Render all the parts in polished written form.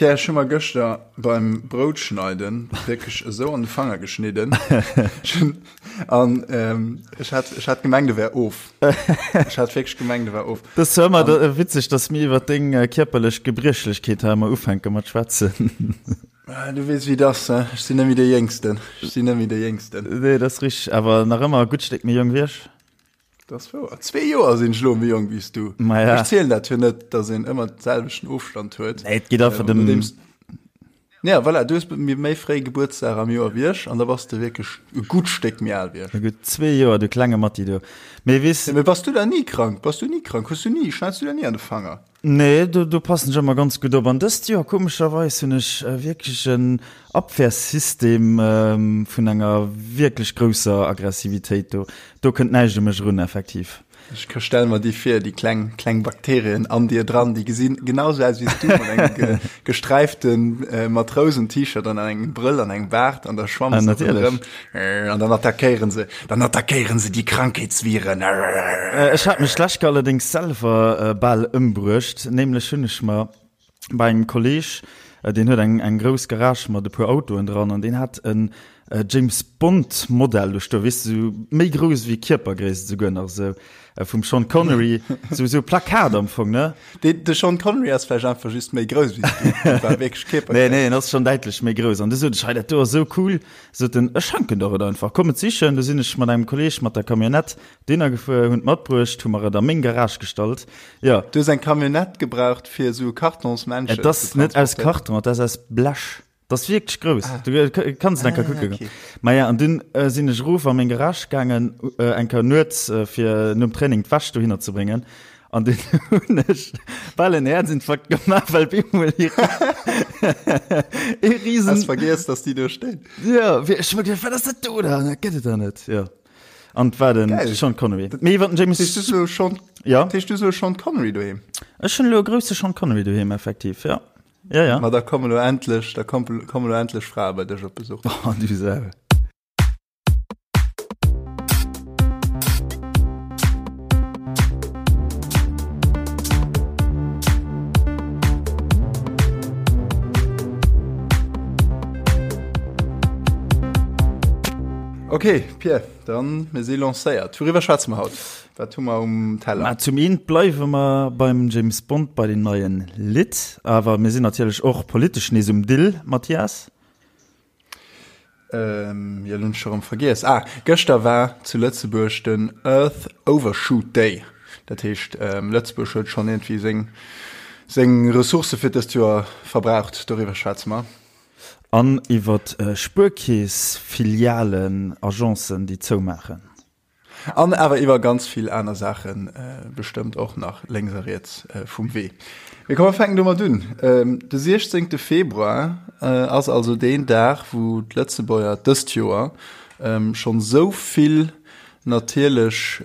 Pierre, ech hu mer gëschter beim Broutschneiden wierklech esou an de Fanger geschnidden. An ähm, ech hat, ech hat gemengt, e wär of. Ech hat wierklech gemengt, e wär of. Dat ass zwar ëmmer da, witzeg, dass mir iwwer deng äh, kierperlech Gebriechlechkeet hei ëmmer ufänke mat schwätzen. Ah, Du weess, wéi et ass, he? Ech sinn net méi dee Jéngsten. Ech sinn net méi dee Jéngsten. Nee, dat ass richteg, awer nach ëmmer e gutt Stéck méi jonk wéi ech. Dat ass wouer. Zwee Joer sinn ech elo méi jonk wéi s du. Ma ja. Ech zielen dat jo net, datt een ëmmer de selwechten Ofstand huet. Nee, et geet einfach dem. Nodeems, ja, voilà, du hues méi méi fréi Gebuertsdag am Joer wéi ech an da bass de wierklech e gutt Stéck méi al wéi ech. E gutt zwee Joer, du klenge Matti, du. Mee weess. Mee bass du da ni krank? Bass du ni krank? Hues du ni, schneits du der ni an de Fanger? Nee, do, do passen ech ëmmer ganz gutt op. An dëst Joer, komescherweis, hunn ech wierklech en Abwehrsystem vun enger wierklech grousser Aggressivitéit. Do, do kënnt näischt u mech erun, effektiv. Ech stelle mer déi vir, déi kleng, kleng Bakterien an dir dran, déi gesinn genau sou aus wéi s du, mat engem ge, gesträiften Matrousen-T-Shirt an engem Brëll an engem Baart an da schwammen se ronderëm an dann attackéieren se. Dann attackéieren se déi Krankheetsviren. Ech hat mech d'lescht Kéier allerdéngs selwer bal ëmbruecht. Nämlech hunn ech mer bei engem Kolleg, deen huet eng eng grouss Garage mat e puer Autoen dran, an deen hat en James Bond Modell do stoen, weess de, sou méi grouss wéi Kierpergréisst esouguer nach, esou vum Sean Connery, sou sou e Plakat am Fong, ne? De, de Sean Connery ass vläicht einfach just méi grouss wéi s du, dat war wierklech Kierpergréisst. Nee, nee, en ass schonn däitlech méi grouss. An du sot ech, hei dat do ass esou cool, Sot en, ech schenken der et einfach, komm et sichen. Du sinn ech mat engem Kolleg mat der Camionnette dohinner gefuer, hunn et matbruecht, hu mer et a meng Garage gestallt. Jo. Du hues eng Camionnette gebraucht fir esou e Kartonsmännchen Et ass net aus Karton, et ass aus Blech. Et ass wierklech grouss. Du kanns et eng Kéier kucke goen. Maja, an dunn sinn ech erof a meng Garage gaangen, eng Kéier nuets, fir nom Training d'Wäsch dohinner ze bréngen. An dunn hunn ech bal en Häerzinfarkt gemaach, well op eemol ee Riesen. Has vergiess, dass déi do stinn. Jo, ech hu mer geduecht, wat ass dat do dann? Dat gëtt et der net. Jo. An et war den Sean Connery. Mee iwwer den James. Heescht du elo Sean, ja? Heescht du elo Sean Connery doheem? Ech hunn elo e grousse Sean Connery doheem, effektiv, jo. Ja, ja. Ma da kommen elo endlech, da kommen elo endlech Frae bei dech op Besuch. Oh, du Sau. Ok, Pierre, dann mir si lancéiert. Wouriwwer schwätze mer haut? Wat hu mer um Teller? Ma zum eent bleiwe mer beim James Bond bei den neien Lidd, awer mir sinn natierlech och politesch nees um Dill, Mathias. Ähm, jo, lo hunn ech scho rëm vergiess. Ah, gëschter war zu Lëtzebuerg den Earth Overshoot Day. Dat heescht, ähm, Lëtzebuerg huet schonn iergendwéi seng, seng Ressourcë fir dëst Joer verbraucht. Doriwwer schwätze mer. An iwwer Spuerkeess-Filialen, Agencen, déi zoumaachen. An awer iwwer ganz vill aner Saache bestëmmt och nach lénks a riets vum Wee. Mee komm mer fänken domat un. De 16 Februar ass also deen Dag, wou d'Lëtzebuerger dëst Joer schonn esou vill natierlech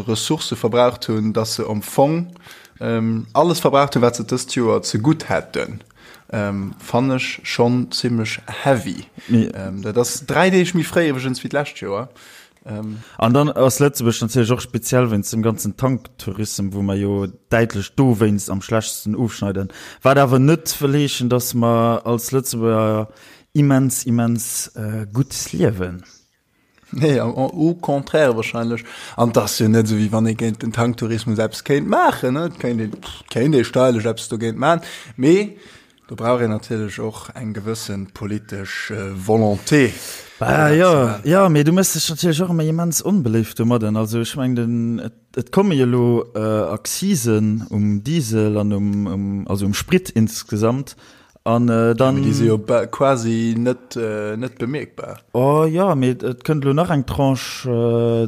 Ressourcë verbraucht hunn, datt se am Fong alles verbraucht hunn, wat se dëst Joer zegutt hätten. Fannen ech schonn zimmlech heavy. Dat ass 3 Deeg méi fréi iwwregens wéi d'lescht Joer. Ähm. An dann ass Lëtzebuerg natierlech och speziell wéinst dem ganzen Tanktourism, wou mer jo däitlech dowéinst am schlechtesten ofschneiden. Wat awer net wëll heeschen, datt mer als Lëtzebuerger immens, immens gutt liewen. Nee, au contraire wahrscheinlech. An et ass jo net esou, wéi wann ee géint den Tanktourismus eppes kéint maachen, ne? Et kéint een, kéint ee steierlech eppes dogéint maachen, mee Do brauch een natierlech och eng gewësse politesch Volonté. Bah jo, jo, mee du méchs dech natierlech och ëmmer immens onbeléift domadden. Also ech mengen, den, et, et komme jo elo Accisen um Diesel an um, um, also um Sprit insgesamt. An dann. Mee déi si jo quasi net, net bemierkbar. Oh jo, mee et kënnt elo nach eng Tranche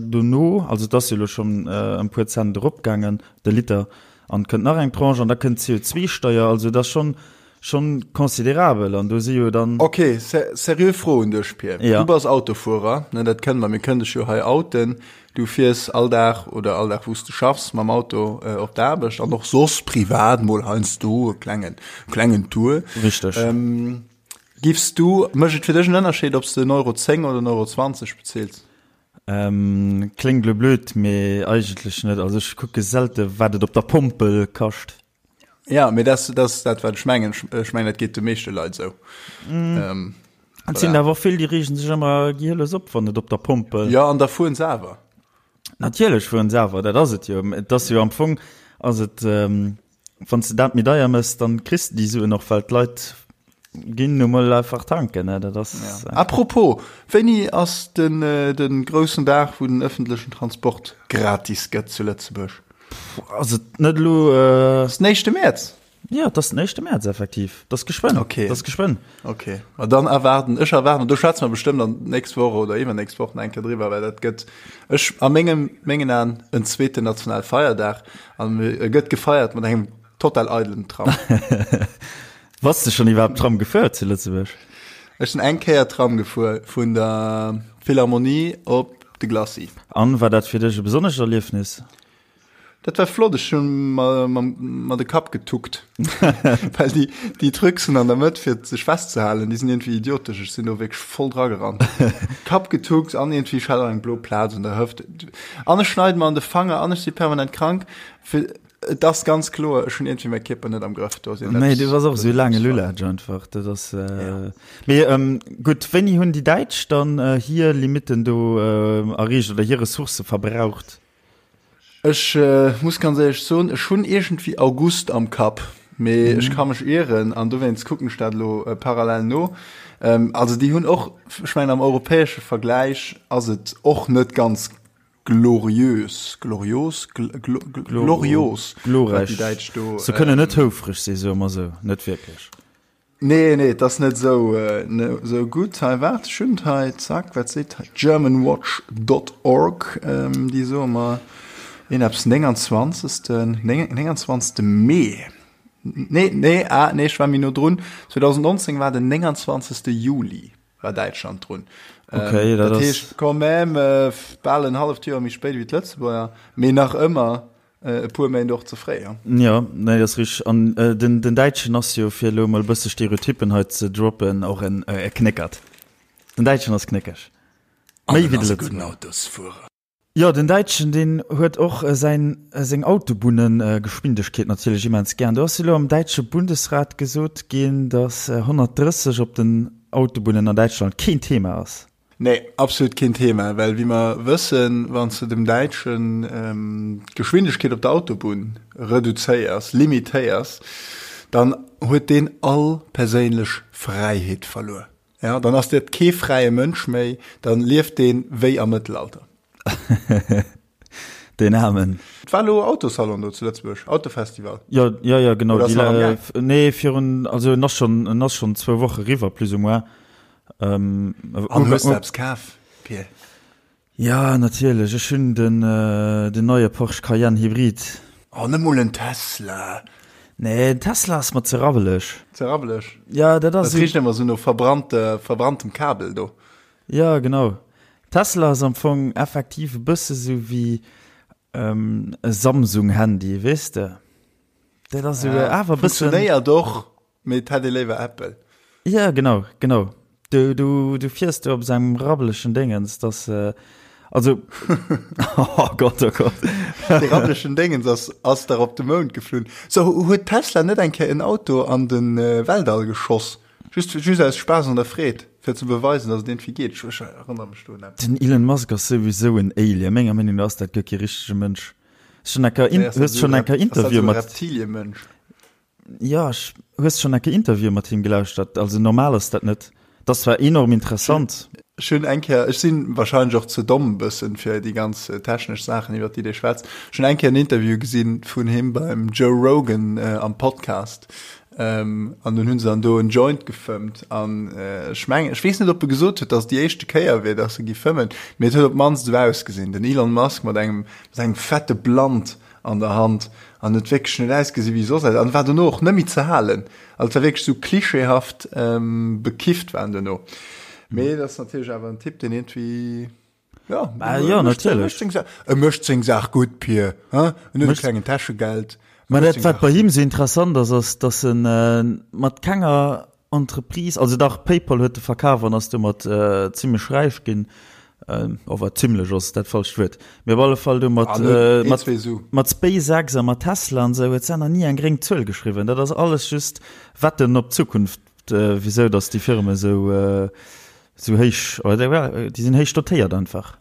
dono. Also et ass jo elo schonn ëm puer Cent eropgaangen, de Liter. An et kënnt nach eng Tranche an da kënnt d'CO2-Steier. Also et ass schonn, schonn considerabel an do si jo dann. Ok, seriö Fro un dech, Pir. Ja. Du bass Autofuerer, ne, dat kënne mer, mir kënnen dech jo hei outen. Du fiers all Dag oder all Dag wou s de schaffs mam Auto op d'Aarbecht an och soss privat mol heiansdo e klengen, klengen Tour. Richteg. Giffs du, mécht et fir dech en Ënnerscheed, ob s de en Euro 10 oder en Euro 20 bezils? Kléngt lo blöd, mee eigentlech net. Also ech kucke selte wat et op der Pompel kascht. Ja, mee dat ass dat, wat ech mengen. Ech mengen, dat geet de meeschte Leit esou. Mm. Ähm, Et sinn awer vill, déi reegen sech ëmmer gielës op, wann et op der Pomp. Äh, ja, an da fueren se awer. Natierlech fueren se awer, dat ass et jo. Et ass jo am Fong, ass et, ähm, wann s de dat méi deier mëss, dann kriss de déi Suen och, well d'Leit ginn nu mol einfach tanken, ne? Dat ass. Ja. Apropos, wéini ass den, äh, den groussen Dag, wou den ëffentlechen Transport gratis gëtt zu Lëtzebuerg? Ass et net elo. Äh, ass den éischte Mäerz? Ja, et ass den éischte Mäerz effektiv. Dat ass geschwënn. Okay. Dat ass geschwënn. Okay. Ma dann erwaarden, ech erwaarden, do schwätze mer bestëmmt dann d'nächst Woch oder iwwernächst Woch nach eng Kéier driwwer, well dat gëtt ech a mengem, mengen Aen en zweeten nationale Feierdag an e gëtt gefeiert mat engem total eidelen Tram. Bass de schonn iwwerhaapt Tram gefuer zu Lëtzebuerg? Ech sinn eng Kéier Tram gefuer vun der Philharmonie op de Glacis. An, war dat fir dech e besonnescht Erliefnis? Dat war flott, ech hunn mer mer de Kapp getuckt, well déi déi Trucsen an der Mëtt fir sech festzehalen, déi sinn iergendwéi idiotesch. Ech sinn do wierklech voll dra gerannt. Kapp getuckt an iergendwéi ech hat och eng blo Plaz un der Hëft an ech schneide mer an de Fanger an ech si permanent krank. Fir et ass ganz kloer, ech hunn iergendwéi mäi Kierper net am Grëff. Do ass Nee, du bass och esou e laange Lulatsch einfach. Dat ass mee gutt, wéini hunn déi Däitsch dann hir Limitten do erreecht oder hir Ressourcë verbraucht? Ech muss ganz éierlech soen, ech hunn iergendwéi August am Kapp, mee ech ka mech ieren an dowéinst kucken ech dat elo parallel no. Also déi hunn och, ech mengen am europäesche Vergläich ass et och net ganz gloriös, glorios, glorios, wat déi Däitsch do. Se kënnen net houfreg sinn, soe mer esou, net wierklech. Nee, nee, et ass net esou, esou gutt. Hei, waart, ech hunn et hei, zack, wat seet hei Germanwatch dot org, déi soe mer een eppes 29. 29. Mee. Nee, nee, ah, nee, ech war méi no drun. 2019 war den 29. Juli war Däitschland drun. Okay, dat ass. Dat heescht quand même bal en halleft Joer méi spéit wéi d'Lëtzebuerger, mee nach ëmmer E puer Méint och ze fréi, jo. Jo, nee, dat ass richteg. An den, den Däitschen ass jo, fir elo emol e bësse Stereotyppen hei ze droppen, och en e Knéckert. Den Däitschen ass knéckeg. Méi wéi de Lëtzebuerger. Autosfuerer. Jo, den Däitschen, deen huet och säin, seng Autobunnegeschwindegkeet natierlech immens gär. Do ass elo am däitsche Bundesrat gesot ginn, datt 130 op den Autobunnen an Däitschland keen Thema ass. Nee, absolut keen Thema, well wéi mer wëssen, wann s de dem Däitschen d'Geschwindegkeet op der Autobunn reduzéiers, limitéiers, dann huet deen all perséinlech Fräiheet verluer. Ja, dann ass dat kee fräie Mënsch méi, dann lieft deen wéi am Mëttelalter. Deen Aarmen. Et war elo Autosalon do zu Lëtzebuerg, Autofestival. Jo, jo, jo, genau. Oder ass nach am Gaang? Nee, virun, also en ass schonn, en ass schonn zwou Woche riwwer, plus ou moins. Ähm, An hues de eppes kaf, Pir? Ja, natierlech. Ech hunn den, den neie Porsche Cayenne Hybrid. Oh, net mol en Tesla. Nee, en Tesla ass mer ze rabbeleg. Ze rabbeleg? Ja, dat ass. Dat richt ëmmer sou no verbrannte, verbranntem Kabel do. Ja, genau. Tesla ass am Fong effektiv e bësse sou wéi e Samsung-Handy, weess de? Dat ass sou awer e bëssen. Funktionéiert och, mee et hätt ee léiwer Apple. Ja, genau, genau. Du, du, du fiers do op esou engem rabbelechen Déngens, dass, also, oh Gott, oh Gott. Dee rabbelechen Déngens ass, ass dach op de Mound geflunn. So, huet Tesla net eng Kéier en Auto an de Weltall geschoss? Just, just aus Spaass an der Freed, fir ze beweisen, dass et iergendwéi geet. Ech, ech erënnere mech do un eppes. Den Elon Musk ass souwisou en Alien. Menger Meenung no ass dat guer kee richtege Mënsch. Hues schonn eng Kéier, Nee, ass dat hues schonn eng Kéier Interview mat. Reptiliemënsch? Jo, ech, hues schonn eng Kéier Interview mat him gelauschtert? Also normal ass dat net. Dat ass zwar enorm interessant. Ech hunn eng Kéier, ech si wahrscheinlech och ze domm e bëssen fir déi ganz technesch Saachen, iwwer déi dee schwätzt. Ech hunn eng Kéier en Interview gesinn vun him beim Joe Rogan am Podcast. An dunn hunn se dann do en Joint gefëmmt. An ech mengen, ech weess net, ob e gesot huet, datt et déi éischte Kéier wier, datt e gi fëmmen, mee et huet op d'mannst esou ausgesinn. Den Elon Musk mat engem, mat engem fette Blunt an der Hand an huet wierklech net ausgesi wéi soss an war dono och net méi ze halen. Also et war wierklech esou klischeehaft bekifft war en dono. Mee dat ass natierlech awer en Typ, deen iergendwéi, ja, Bah, jo, natierlech. E mécht seng Saach gutt, Pir, hein? En huet e klengen Täschegeld. Mä dat, wat bei him esou interessant ass, ass, datt en mat kenger Entreprise, also dach, PayPal huet e verkaf an ass domat zimlech räich ginn. Ower zimlech ass dat falscht Wuert. Mee op alle Fall do mat, mat, mat SpaceX a mat Tesla an esou huet se nach ni eng gréng Zuel geschriwwen. Dat ass alles just Wetten op d'Zukunft, wisou datt déi Firme esou, esou héich, oder déi sinn héich dotéiert einfach.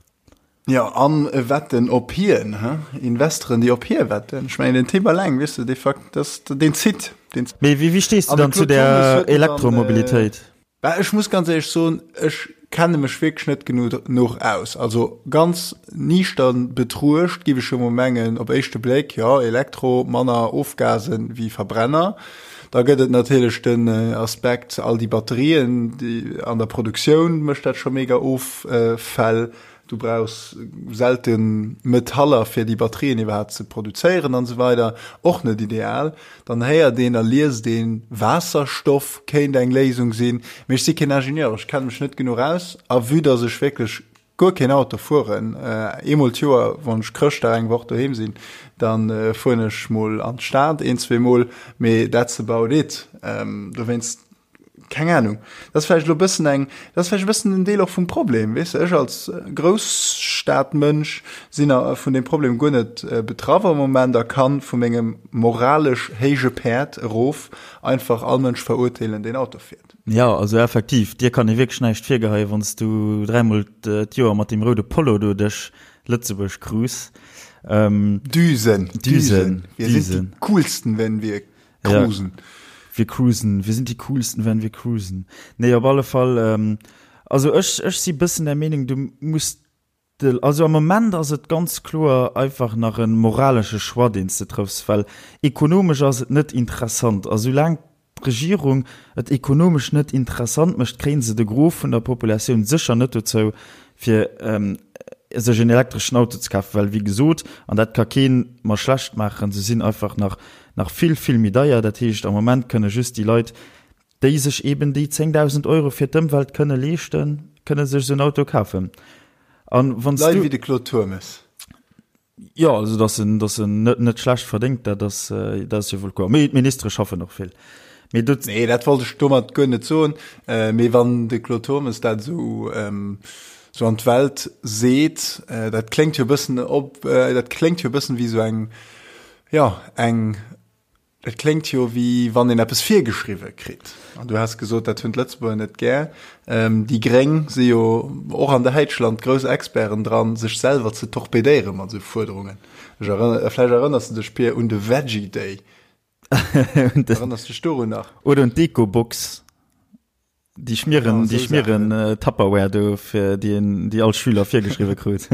Jo, an Wetten op hien, he? Investoren, déi op hie wetten. Ech mengen, den Typ alleng, weess de, dee Fakt, dass deen zitt, deen. Mee wéi stees du dann zu der Elektromobilitéit? Bah, ech muss ganz éierlech soen, ech kenne mech wierklech net genuch aus. Also ganz niichtern betruecht giff ech jo mol mengen, op éischte Bléck, jo, Elektro, manner Ofgasen wéi Verbrenner. Da gëtt et natierlech den Aspekt, all déi Batterien, déi an der Produktioun mécht dat scho mega Offäll. Du brauchs selte Metaller fir déi Batterien iwwerhaapt ze produzéieren an esou weider. Och net ideal. Dann héiert een a liest een, Waasserstoff kéint eng Léisung sinn. Mee ech si keen Ingenieur, ech kenne mech net genuch aus. A vue dass ech wierklech guer keen Auto fueren, eemol d'Joer, wann ech Chrëschtdag eng Woch doheem sinn, da fueren ech mol an d'Stad een, zweemol, mee that's about it. Dowéinst Keng Ahnung. Dat ass vläicht elo e bëssen eng, dat ass vläicht e bëssen en Deel och vum Problem, weess de. Ech als Grousstadmënsch sinn a vun deem Problem guer net betraff am Moment a kann vu mengem moralesch héije Päerd erof einfach all Mënsch verurteelen, deen Auto fiert. Jo, also effektiv, dir kann ee wierklech näischt virgeheien, wann s du dräimol d'Joer mat deem roude Polo do duerch Lëtzebuerg cruise. Düsen, Düsen, wir sind die coolsten, wenn wir Cruisen. Ja, wir cruisen. Wir sind die coolsten, wenn wir cruisen. Nee, op alle Fall, ähm, also ech, ech si bëssen der Meenung, du muss de, also am Moment ass et ganz kloer einfach nach e moralesche Choix, deen s de trëffs, well ekonomesch ass et net interessant. A soulaang d'Regierung et ekonomesch net interessant mécht, kréie se de Gros vun der Populatioun sécher net dozou, fir sech en elektreschen Auto ze kafen, well wéi gesot, an dat ka kee mer schlecht maachen, se sinn einfach nach nach vill, vill méi deier. Dat heescht, am Moment kënne just déi Leit, déi sech eeben déi 10.000 Euro fir d'Ëmwelt kënne leeschten, kënne sech esou en Auto kafen. An wann s du. Leit wéi de Claude Turmes. Jo, also datt en, datt en net, net schlecht verdéngt, dat ass, dat ass jo wuel kloer. Mee d'Ministere schaffen och vill. Mee do. Nee, dat wollt ech domat guer net soen. Mee wann de Claude Turmes dat esou, esou an d'Welt seet, dat kléngt jo e bëssen op, dat kléngt jo e bëssen wéi esou eng, jo, eng, Et kléngt jo wéi wann een eppes virgeschriwwe kritt. An du has gesot, dat hunn d'Lëtzebuerger net gär. Déi Gréng si jo och an Däitschland grouss Experten dran, sech selwer ze torpedéiere mat esou Fuerderungen. Ech erënner, vläicht erënners de dech, Pir, un de Veggie Day. Erënners dech dorun nach? Oder un d'Ecobox. Déi Schmieren, déi Schmieren äh, Tupperware do fir déi en, déi all Schüler virgeschriwwe krut.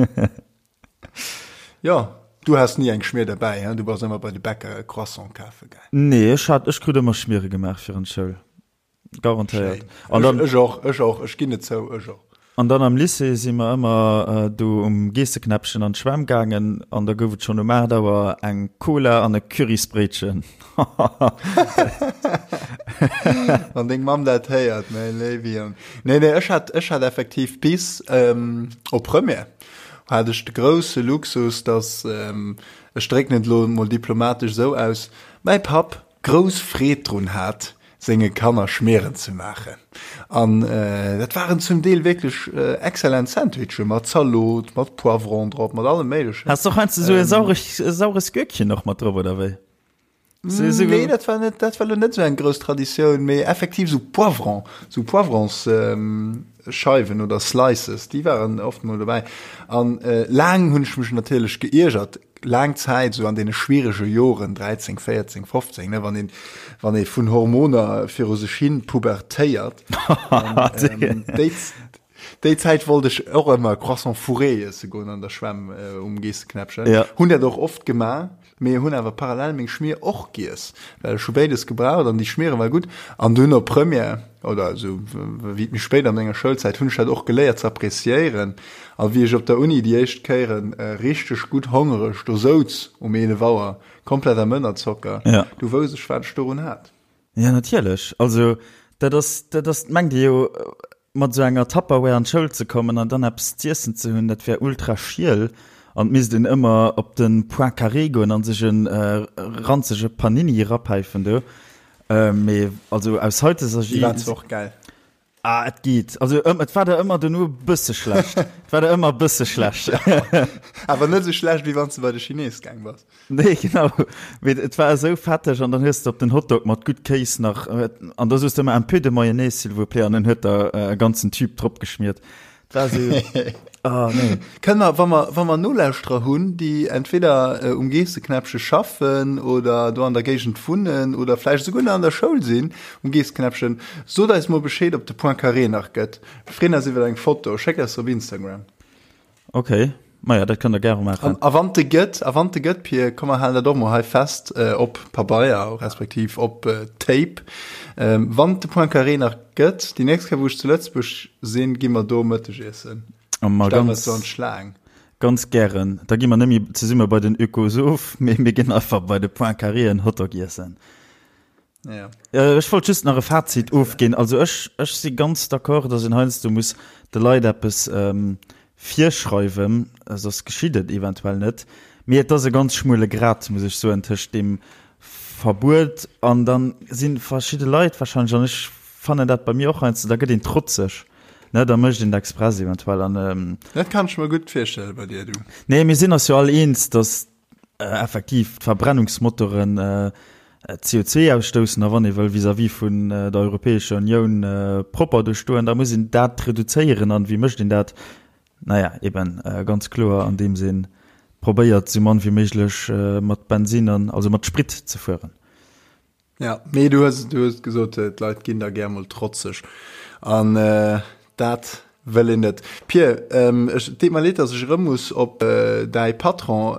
Ja, du has ni eng Schmier derbäi, hein? Du bass ëmmer bei de Bäcker e Croissant kafe gaang. Nee, ech hat, ech krut ëmmer Schmiere gemaach fir an d'Schoul. Garantéiert. An dann, ech och, ech och, ech ginn et zou, ech och. An dann am Lycée si mer ëmmer do um Geesseknäppchen an d'Schwämm gaangen an da gouf et schonn um 8 Auer eng Cola an e Currysbréitchen. Wann deng Mamm dat héiert, mäi léiwe Jong. Nee, nee, ech hat, ech hat effektiv bis op Première hat ech de grousse Luxus, dass, ech drécken et elo mol diplomatesch esou aus, mäi Papp grouss Freed drun hat, senge Kanner Schmieren ze maachen. An dat waren zum Deel wierklech exzellent Sandwichen, mat Zalot, mat Poivron drop, mat allem Méiglechen. Has de och heiansdo esou e saures, e saures Gürkchen och mat drop, oder wéi? Nee, dat war net, dat war lo net esou eng grouss Traditioun, mee effektiv esou Poivron, esou Poivronsscheiwen oder Slices, déi waren oft mol dobäi. An laang hunn ech mech natierlech geiergert, laang Zäit, esou an deene schwierege Joren, 13, 14, 15, ne, wann een, wann ee vun Hormoner viru sech hin pubertéiert. An déi, déi Zäit wollt ech och ëmmer Croissant fourré iesse goen an der Schwämm um Geesseknäppchen. Ja. Hunn dat och oft gemaach. Mee hunn awer parallel meng Schmier och giess, well ech hu béides gebraucht an déi Schmiere war gutt. An dunn op Première oder esou wéi et méi spéit an menger Schoulzäit hunn ech dat och geléiert ze appreciéieren. A wéi ech op der Uni déi éischt Kéieren richteg gutt hongereg do souz um 11 Auer, komplett am Ënnerzocker, du wousst ech wat ech dorun hat. Ja natierlech, also dat ass, dat ass, mengt Dir jo, mat esou enger Tupperware an d'Schoul ze kommen an dann eppes z'iessen ze hunn, dat wär ultra schiel an et misst een ëmmer op de Point Carré goen an sech e ranzege Panini erapäifen do. Mee also aus haiteger. Déi waren zwar och gäil. Ah, et geet. Also ëm, et war der ëmmer dono e bësse schlecht. Et war der ëmmer e bësse schlecht. Awer net esou schlecht, wéi wann s de bei de Chines gaang bass. Nee, genau. Mee et war esou fetteg an dann hues de op den Hotdog mat gutt Kéis nach, an da soos de ëmmer un peu de mayonnaise, s'il vous plaît, an en huet der e ganzen Tube drop geschmiert. Et war esou, oh nee. Kënne mer, wa mer, wa mer Nolauschterer hunn, déi entweder um Geesseknäppche schaffen oder do an der Géigend wunnen oder vläicht esouguer nach an der Schoul sinn um Geesseknäppchen, sot eis mol Bescheed, ob de Point Carré nach gëtt. Mir freeën eis iwwer eng Foto. Schéckt eis se op Instagram. Ok, maja, dat kënnt der gäre maachen. A wann de gëtt, a wann de gëtt, Pir, komm mer halen dat och mol hei fest op Pabeier respektiv op Tape. Wann de Point Carré nach gëtt, déi nächst Kéier wou ech zu Lëtzebuerg sinn, gi mer do Mëtteg iessen. Ma Stell mer so an d'Schlaang. Ganz gären. Da gi mer net méi zesumme bei den Ökosoph, mee mir ginn einfach bei de Point Carré en Hotdog iessen. Ja. Ech wollt just nach e Fazit ofginn. Also ech, ech si ganz d'accord, datt een heiansdo muss de Leit eppes ähm, virschreiwen, soss geschitt et eventuell net. Mee et ass e ganz schmuele Grat, muss ech soen, tëscht deem Verbuet an dann si verschidde Leit wahrscheinlech, an ech fannen dat bei mir och heiansdo, da gëtt een trotzeg, ne, da mécht een et express eventuell an. Ähm, Dat kann ech mer gutt virstelle bei dir, du. Nee, mir sinn eis jo all eens, datt effektiv d'Verbrennungsmotoren CO2 ausstoussen a wann ee wëll vis-à-vis vun der Europäescher Unioun propper do stoen, da muss een dat reduzéieren. An wéi mécht een dat? Naja, eben ganz kloer andeems ee probéiert, esou mann wéi méiglech mat Bensin an also mat Sprit ze fueren. Ja, mee du hues, du hues gesot, d'Leit ginn da gär mol trotzeg. An dat wëll een net. Pir, ech, et deet mer leed, datt ech erëm muss op däi Patron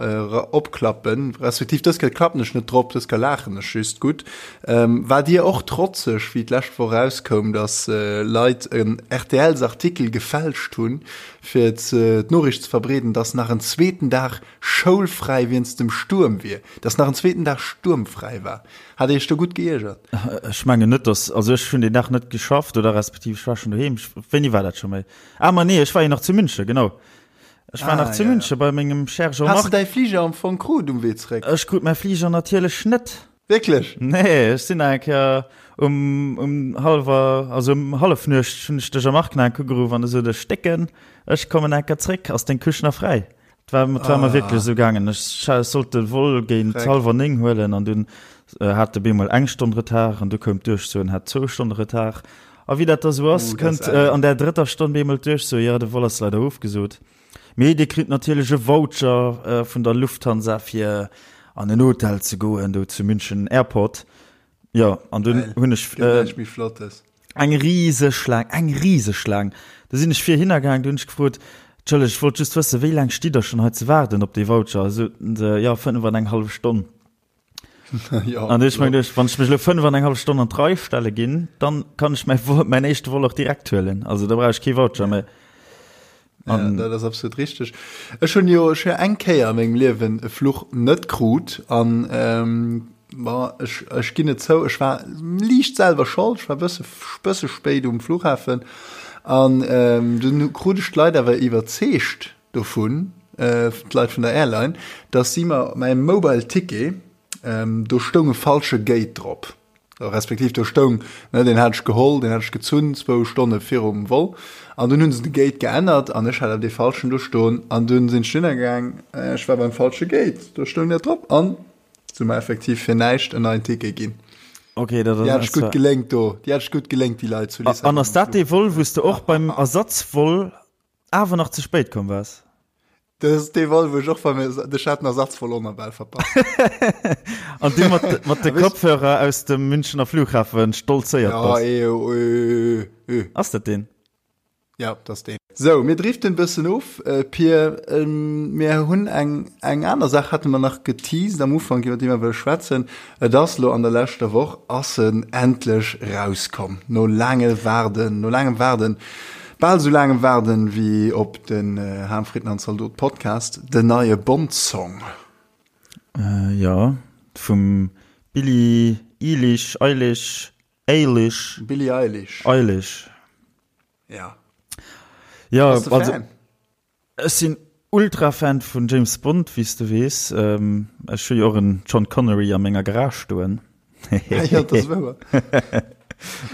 opklappen, respektiv dës Kéier klappen ech net drop, dës Kéier laachen ech just. Gutt. Waart Dir och trotzeg, wéi d'lescht Woch erauskoum, datt Leit en RTLs-Artikel gefälscht hunn, fir d'Noriicht ze verbreeden, datt nach en zweeten Dag schoulfräi wéinst dem Stuerm wier, dass nach en zweeten Dag stuermfräi war. Hat Dir Iech do gutt geiergert? Ech mengen net, dass, also ech hunn deen Dag net geschafft oder respektiv ech war schonn doheem. Wéini war dat scho méi? Ah ma nee, ech war jo nach zu München, genau. Ech war nach zu München bei mengem cher Jean-Marc. Has de däi Fliger am Fong krut um Wee zeréck? Ech krut mäi Fliger natierlech net. Wierklech? Nee, ech sinn nach eng Kéier um, um hallwer, also um Hallefnuecht hunn ech de Jean-Marc nach eng Kéier ugeruff an e sot, Ech stécken, ech kommen eng Kéier zréck, ass deng Couche nach fräi? Et war, et war mer wierklech esou gaangen. Ech sollt de Vol géint hallwer 9 huelen an dunn hat de bemol eng Stonn Retard an du koum d'Duerchso en hat zwou Stonne Retard. A wéi dat da sou ass, kënnt an där drëtter Stonn bemol d'Duerchso, jo, de Vol ass leider ofgesot. Mee Dir kritt natierlech e Voucher vun der Lufthansa fir an en Hotel ze goen do zu München Airport. Jo, an dunn hunn ech. Gëtt näischt méi Flottes. Eng riseg Schlaang, eng riseg Schlaang. Du sinn ech vir hinner gaang, du hunn ech gefrot, Entschëllegt, ech wollt just wëssen, wéi laang stitt der schonn hei ze waarden op dee Voucher? Soten se, jo, 5 an eng hallef Stonn. Jo, An du hunn ech mer geduecht, wann ech mech elo 5 an eng hallef Stonn an d'Rei stelle ginn, dann kann ech mäi Vol, mäin éischte Vol och direkt huelen. Also da brauch ech kee Voucher méi. Ja, dat ass absolut richteg. Ech hunn jo ech hu eng Kéier a mengem Liewen e Fluch net krut an ähm, ma ech, ech ginn et zou, ech war liicht selwer schold, ech war bësse bësse spéit um Flughafen an ähm, dunn krut ech d'Leit awer iwwerzeegt dovun, äh, d'Leit vun der Airline, dass si mer mäi Mobile Ticket, ähm, do stoung e falsche Gate drop. Respektiv do stoung, ne, deen hat ech geholl, deen hat ech gezunn zwou Stonne virum Vol an dunn hunn se de Gate geännert an ech hat awer dee falschen do stoen an dunn sinn ech dunner gaang, ech war beim falsche Gate, do stoung dat drop an se hu mer effektiv fir näischt en neien Ticket ginn. Okay, dat Déi hat ech gutt gelénkt do, déi hat ech gutt gelénkt, déi Leit zu Lissabon. An ass dat dee Vol, wou s de och beim Ersatzvol awer nach ze spéit komm waars? Dat ass dee Vol, wou ech och war, mee ech hat den Ersatzvol och nach bal verpasst. An du mat, mat de Kopfhörer aus dem Münchener Flughafen stolzéiert Ja, bass. eh, oh, eh, eh, eh. Ass dat deen? Ja, dat ass deen. Sou, mir driften e bëssen of, Pir. Mir hunn eng, eng aner Saach hate mer nach geteased am Ufank, iwwer déi mer wëlle schwätzen. Et ass elo an der leschter Woch ass en endlech rauskomm, no laange Waarden, no laangem Waarden. Bal sou laangem Waarden wéi op den Ham Fritten an Zaldot Podcast, den neie Bond Song. Jo, vum Billie Eilish, Eilish, Eilish. Billie Eilish. Eilish. Ja. Ja, Bass de Fan? Ech sinn Ultra-Fan vun James Bond, wéi s de weess. Ech hu jo och en John Connery a menger Garage stoen. Ja, dat ass wouer.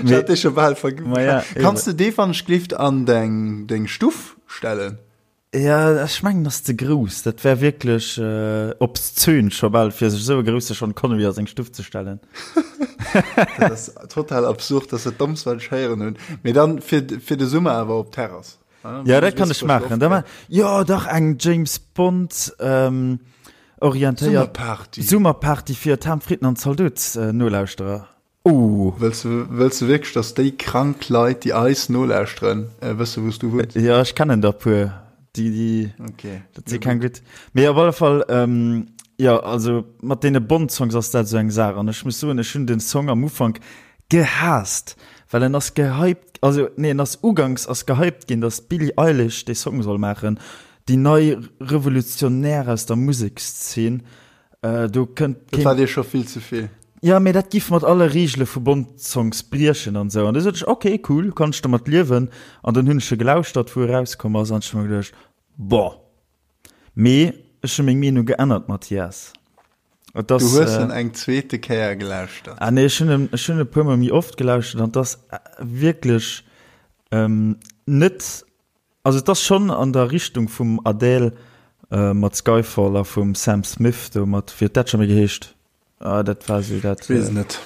Ech hat dee scho bal verg. Ma ja, eben. Kanns de dee wann ech glift an deng, deng Stuff stellen? Ja, ech mengen ass ze grouss. Dat wär wierklech obszön scho bal, fir sech esou e grousse Sean Connery a seng Stuff ze stellen. Dat ass total absurd, dat ass dat Dommst, wat ech héieren hunn. Mee dann fir, fir de Summer awer op d'Terrass. Ja, dat kann ech maachen. Da ma jo dach eng James Bond ähm, orientéiert Summerparty. Summerparty fir d'Ham Fritten an Zaldot äh, Nolauschterer. Oh. Wëlls du, wëlls du wierklech, dass déi krank Leit, déi eis nolauschteren, äh, wësse wou s du wunns? Ja, ech kennen der puer. Déi, déi, Okay. dat si keng gutt. Mee op alle Fall, ähm, ja, also mat deene Bond-Songs ass dat esou eng Saach. An ech muss soen, ech hunn den Song am Ufank gehaasst, well en ass gehypt, also nee, en ass uganks ass gehypt ginn, dass d'Billie Eilish dee Song soll maachen, déi nei Revolutionär aus der Musekszeen, do kënnt Dat war dir scho vill ze vill. Jo, mee dat giff mat alle Reegele vu Bond-Songs briechen an esou. An du sot ech, ok, cool, kann ech domat liewen. An dann hunn ech e gelauschtert, wou e rauskomm ass, an ech hu mer geduecht, bon. Mee ech hu meng Meenung geännert, Mathias. Et ass, du hues en eng zweete Kéier gelauschtert? Ah nee, ech hunn en, ech hunn e puer mol méi oft gelauschtert an et ass wierklech net, also et ass schonn an der Richtung vum Adele mat Skyfall a vum Sam Smith do mat, wéi huet dat scho méi geheescht? Ah, dat war sou dat. Ech weess et net.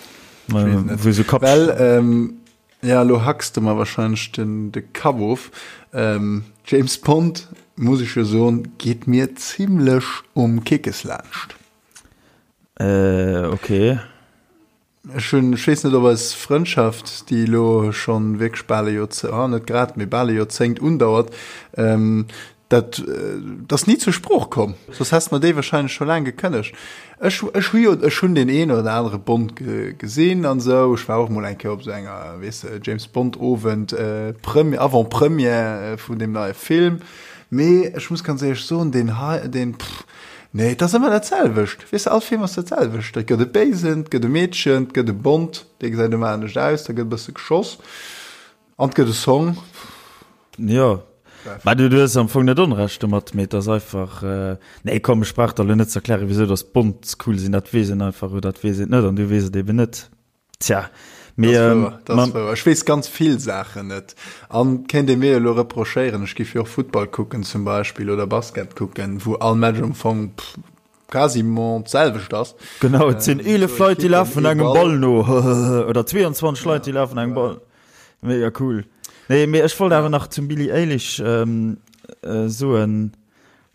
Ech weess et net. Wou sou Kapp. Well, ja, elo hacks de mer wahrscheinlech den de Kapp of. James Bond, muss ech jo soen, geet mir zimlech um Kickes laanscht. Äh, okay. Ech hunn, ech weess net, ob eis Frëndschaft, déi elo schonn wierklech bal e Joerzé-, ah, net grad, mee bal e Joerzéngt undauert, dat, dat ass ni zur Sprooch komm. Soss häss de mer déi wahrscheinlech scho laang gekënnegt. Ech, ech hu jo, ech hunn deen een oder anere Bond gesinn an esou. Ech war och mol eng Kéier op esou enger, weess de, James Bond Owend, Premi-, Avant-Première vun deem neie Film. Mee ech muss ganz éierlech soen, deen hei, deen, pff, nee, et ass ëmmer dat selwecht. Weess de, all Film ass dat selwecht. Et gëtt e Béisen, et gëtt e Meedchen, et gëtt e Bond, dee gesäit ëmmer anescht aus, da gëtt e bësse geschoss an et gëtt e Song. Jo, mä du hues am Fong net Onrecht domat, mee et ass einfach, nee komm, ech brauch der elo net ze erklären, wisou datt Bonds cool sinn, dat weess een einfach oder dat weess een net an du weess et eben net. Tja, mee, Das wouer, das ähm, wouer. Ech weess ganz vill Saachen net. An kéint ee mir elo reprochéieren, ech giff jo och Futtball kucken zum Beispill oder Basket kucken, wou all Match am Fong pff, quasiment d'selwecht ass. Genau, et sinn 11 Leit, déi lafen engem Ball no oder 22 Leit, déi lafen engem Ball. Mega cool. Nee, mee ech wollt awer nach zum Billie Eilish ähm, äh, soen,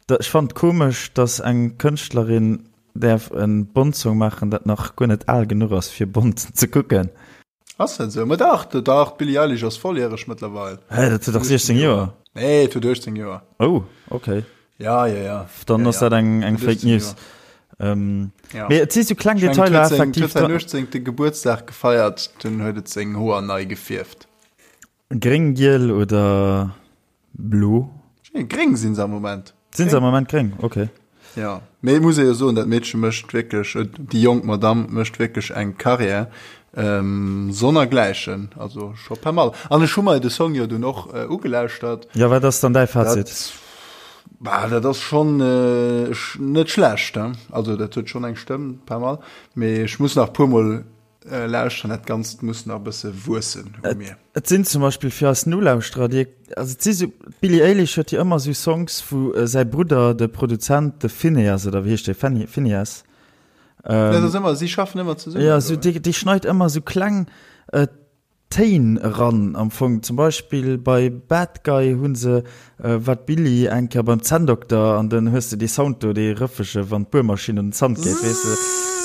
da, ech fand komesch, dass eng Kënschtlerin Däerf en Bond-Song maachen, dat nach guer net al genuch ass fir Bond ze kucken. Ass dat esou? Ma dach, dach, d'Billie Eilish ass volljäreg mëttlerweil. Hä, dat huet dach 16 Joer? Nee, et huet 18 Joer. Oh, okay. Ja, ja, ja. Dann ass dat eng, eng Fake News. Ähm, ja. Mee et si sou kleng Detailer effektiv. Et huet säin 18. Gebuertsdag gefeiert, dunn huet et seng Hoer nei gefierft. Gréng, giel oder blo? Gréng sinn se am Moment. Sinn se am Moment gréng? Okay. Ja, mee et muss ee jo soen, dat Meedche mécht wierklech, déi jonk Madamm mécht wierklech eng Carrière ähm, sonnergläichen, also scho pas mal. An ech hu mer de Song jo dunn och äh, ugelauschtert. Ja, wat ass dann däi Fazit? Dat, bah, dat ass schonn äh, net schlecht, he? Also dat huet schonn eng Stëmm, pas mal. Mee ech muss nach puermol Lauschteren, dat Ganzt muss nach e bësse wuessen u mir. Et sinn zum Beispill fir eis Nolauschterer, déi, also et si sou, d'Billie Eilish huet jo ëmmer sou Songs, wou säi Brudder, de Produzent, de Finneas, oder wéi heescht dee, Fenni, Finneas? Dat ass ëmmer, si schaffen ëmmer zesummen. Jo, sou, dee, dee schneit ëmmer sou kleng Téin eran am Fong. Zum Beispill bei Bad Guy hu se, war d'Billie eng Kéier beim Zänndokter an dann hues de dee Sound do, dee rëffege wann d'Buermaschinn un den Zant geet, weess de.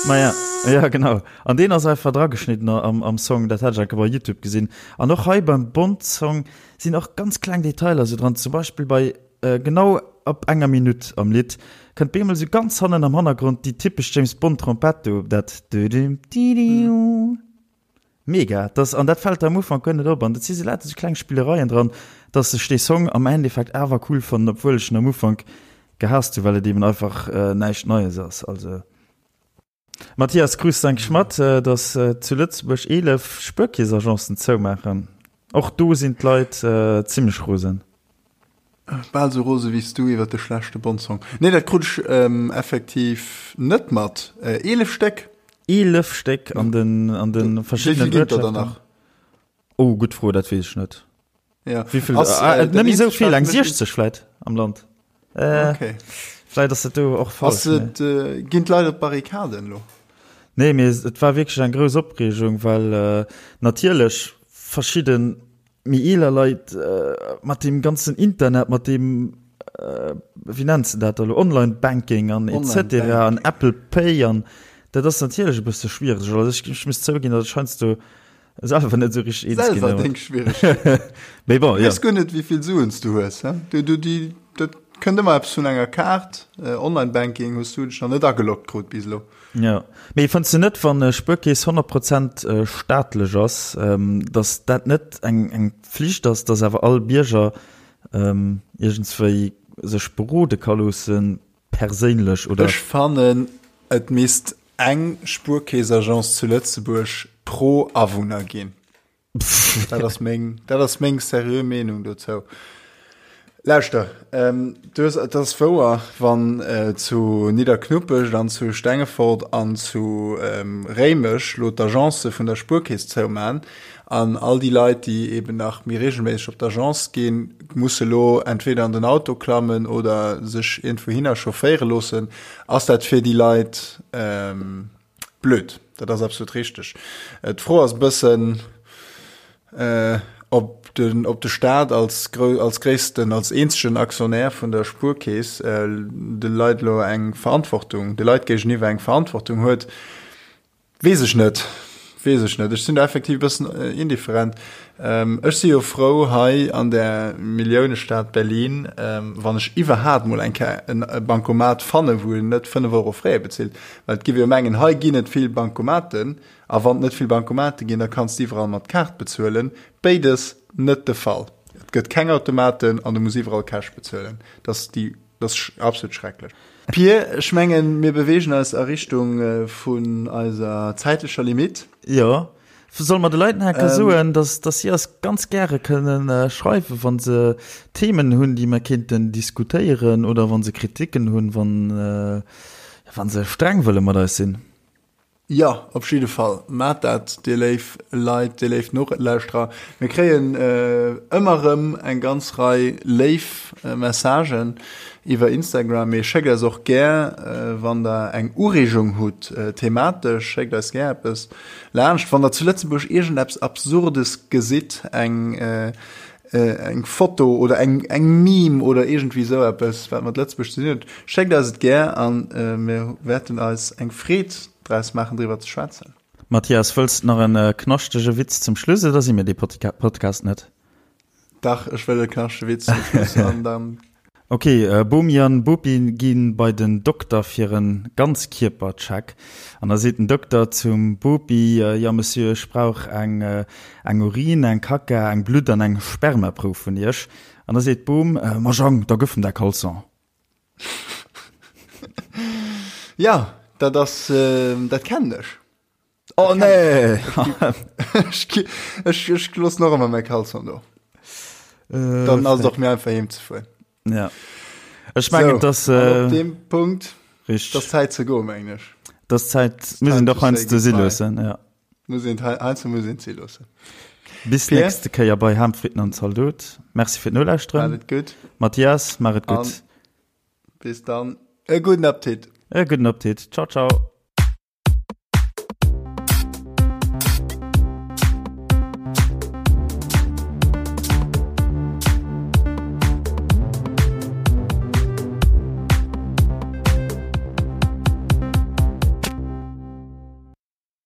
Maja, ja genau. An deen ass einfach drageschnidden am, am Song, dat hat ech eng Kéier bei Youtube gesinn. An och hei beim Bond-Song sinn och ganz kleng Detailer sou dran, zum Beispill bei genau ab enger Minutt am Lidd kënnt bemol sou ganz hannen am Hannergrond déi typesch James Bond-Trompett do, dat dödüm didiu. Mega, dass, an dat fällt der am Ufank guer net op, an dat si sou lauter sou kleng Spillereien dran, dass ech dee Song am Endeffekt awer cool fannen, obwuel ech en am Ufank gehaasst hu, well et eben einfach näischt Neies ass. Also Mathias, krus de eigentlech mat, dass zu Lëtzebuerg 11 Spuerkeessagencen zoumaachen? Och do sinn d'Leit zimmlech rosen. Bal sou rose wéi s du iwwer de schlechte Bond-Song. Nee, dat krut ech effektiv net mat. 11 Stéck? 11 Stéck an den, an de verschiddenen Wéi vill ginn et der dann nach? Oh, gutt Fro, dat weess ech net. Ja. Wéi vill? Ass, äh, net méi sou vill, eng 60 vläit am Land. Äh, okay. Vläit ass dat do och falsch. Ass et, äh, ginn d'Leit op d'Barrikaden elo? Nee, mee et war wierklech eng grouss Opreegung, well äh, natierlech verschidde méi eeler Leit äh, mat deem ganzen Internet, mat deem äh, wéi nenns de dat elo, Online-Banking an etc. an Apple Pay an dat ass natierlech e bësse schwiereg. Also ech, ech muss zouginn, datt ech heiansdo Selwer net sou richteg eens ginn. Selwer deng Schwieregkeeten. Mee bon, ja. Weess guer net, wéi vill Suen s du hues, he? Du, du, déi, dat kënnt ëmmer eppes vun enger Kaart. Online-Banking hues du dech nach net ageloggt krut bis elo. Ja. Mee fënns du net, wann e Spuerkeess 100 Prozent staatlech ass, datt dat net eng, eng Pflicht ass, datt awer all Bierger iergendswéi sech berode ka loossen, perséinlech oder? Ech fannen, et misst eng Spuerkeess-Agence zu Lëtzebuerg pro Awunner ginn. Dat ass meng, dat ass meng seriö Meenung dozou. Lauschter, ähm, du hues, et ass wouer, wann äh, zu Nidderknuppescht an zu Stengefort an zu ähm, Réimech lo d'Agence vun der Spuerkeess zouman an all déi Leit, déi eben nach méi regelméisseg op d'Agence ginn, musse lo entweder an den Auto klammen oder sech iergendwouhinner chaufféiere loossen, ass dat fir déi Leit blöd. Dat ass absolut richteg. D'Fro ass e bëssen, ob den, ob de Staat als, als gréissten, als eenzegen Aktionär vun der Spuerkeess de Leit elo eng Verantwortung, de Leit géigeniwwer eng Verantwortung huet. Weess ech net, weess ech net. Ech sinn do effektiv e bëssen indifferent. Ech si jo frou hei an der Milliounestad Berlin, wann ech iwwerhaapt mol eng Kéier e Bancomat fannen, wou een net 5 Euro Frais bezilt. Well et giff jo mengen, hei ginn et vill Bancomaten, a wann et net vill Bancomate ginn, da kanns de iwwerall mat Kaart bezuelen. Béides net de Fall. Et gëtt keng Automaten an du muss iwwerall Cash bezuelen. Dat ass déi Dat ass absolut schrecklech. Pir, ech mengen, mir beweegen eis a Richtung vun eiser zäitlecher Limite. Jo. Solle mer de Leit nach eng Kéier soen, dass, dass si eis ganz gäre kënnen schreiwen, wa se Themen hunn, déi mer kéinten diskutéieren, oder wa se Kriticken hunn, wann, wa se streng wëlle mat eis sinn? Jo, op jidde Fall, maacht dat, dir léif Leit, dir léif Nolauschterer. Mir kréien ëmmer erëm eng ganz Rei léif Messagen iwwer Instagram. Mee schéckt eis och gär, wann der eng Ureegung hutt thematesch, schéckt eis gär eppes laanscht. Wann der zu Lëtzebuerg iergendeppes Absurdes gesitt, eng eng Foto oder eng eng Meme oder iergendwéi esou eppes, wat mat Lëtzebuerg ze dinn huet, schéckt eis et gär an mir wäerten eis eng Freed draus maachen, driwwer ze schwätzen. Mathias, wëlls de nach en knaschtege Witz zum Schluss oder si mir dee Podcast net? Dach, ech wëll e knaschtege Witz zum Schluss an dann. Ok, Bomi an Bopi ginn bei den Dokter fir en Ganzkierpercheck an da seet den Dokter zum Bopi, Jo Monsieur, ech brauch eng eng Urin, eng Kacka, eng Blutt an eng Spermaprouf vun iech. An da seet d'Bom, Ma Jang, da gëff em däi Caleçon. Jo, dat ass, dat kennen ech. Oh nee! Ech, ech loossen och ëmmer mäi Caleçon do. Äh, Dann ass et och méi einfach heem ze fueren. Ja. Ech mengen, so, dass. Äh, op deem Punkt. Richtig. Das Zäit ze goen, mengen ech. Das Zäit, muss een doch heiansdo si loossen, ja. Muss een, heiansdo muss een si loossen. Bis Pierre? nächste Kéier bei Ham, Fritten an Zaldot. Merci fir d'Nolauschteren. Maach et gutt. Mathias, maach et gutt. Bis dann. E gudden Appetit. E gudden Appetit. Ciao, ciao.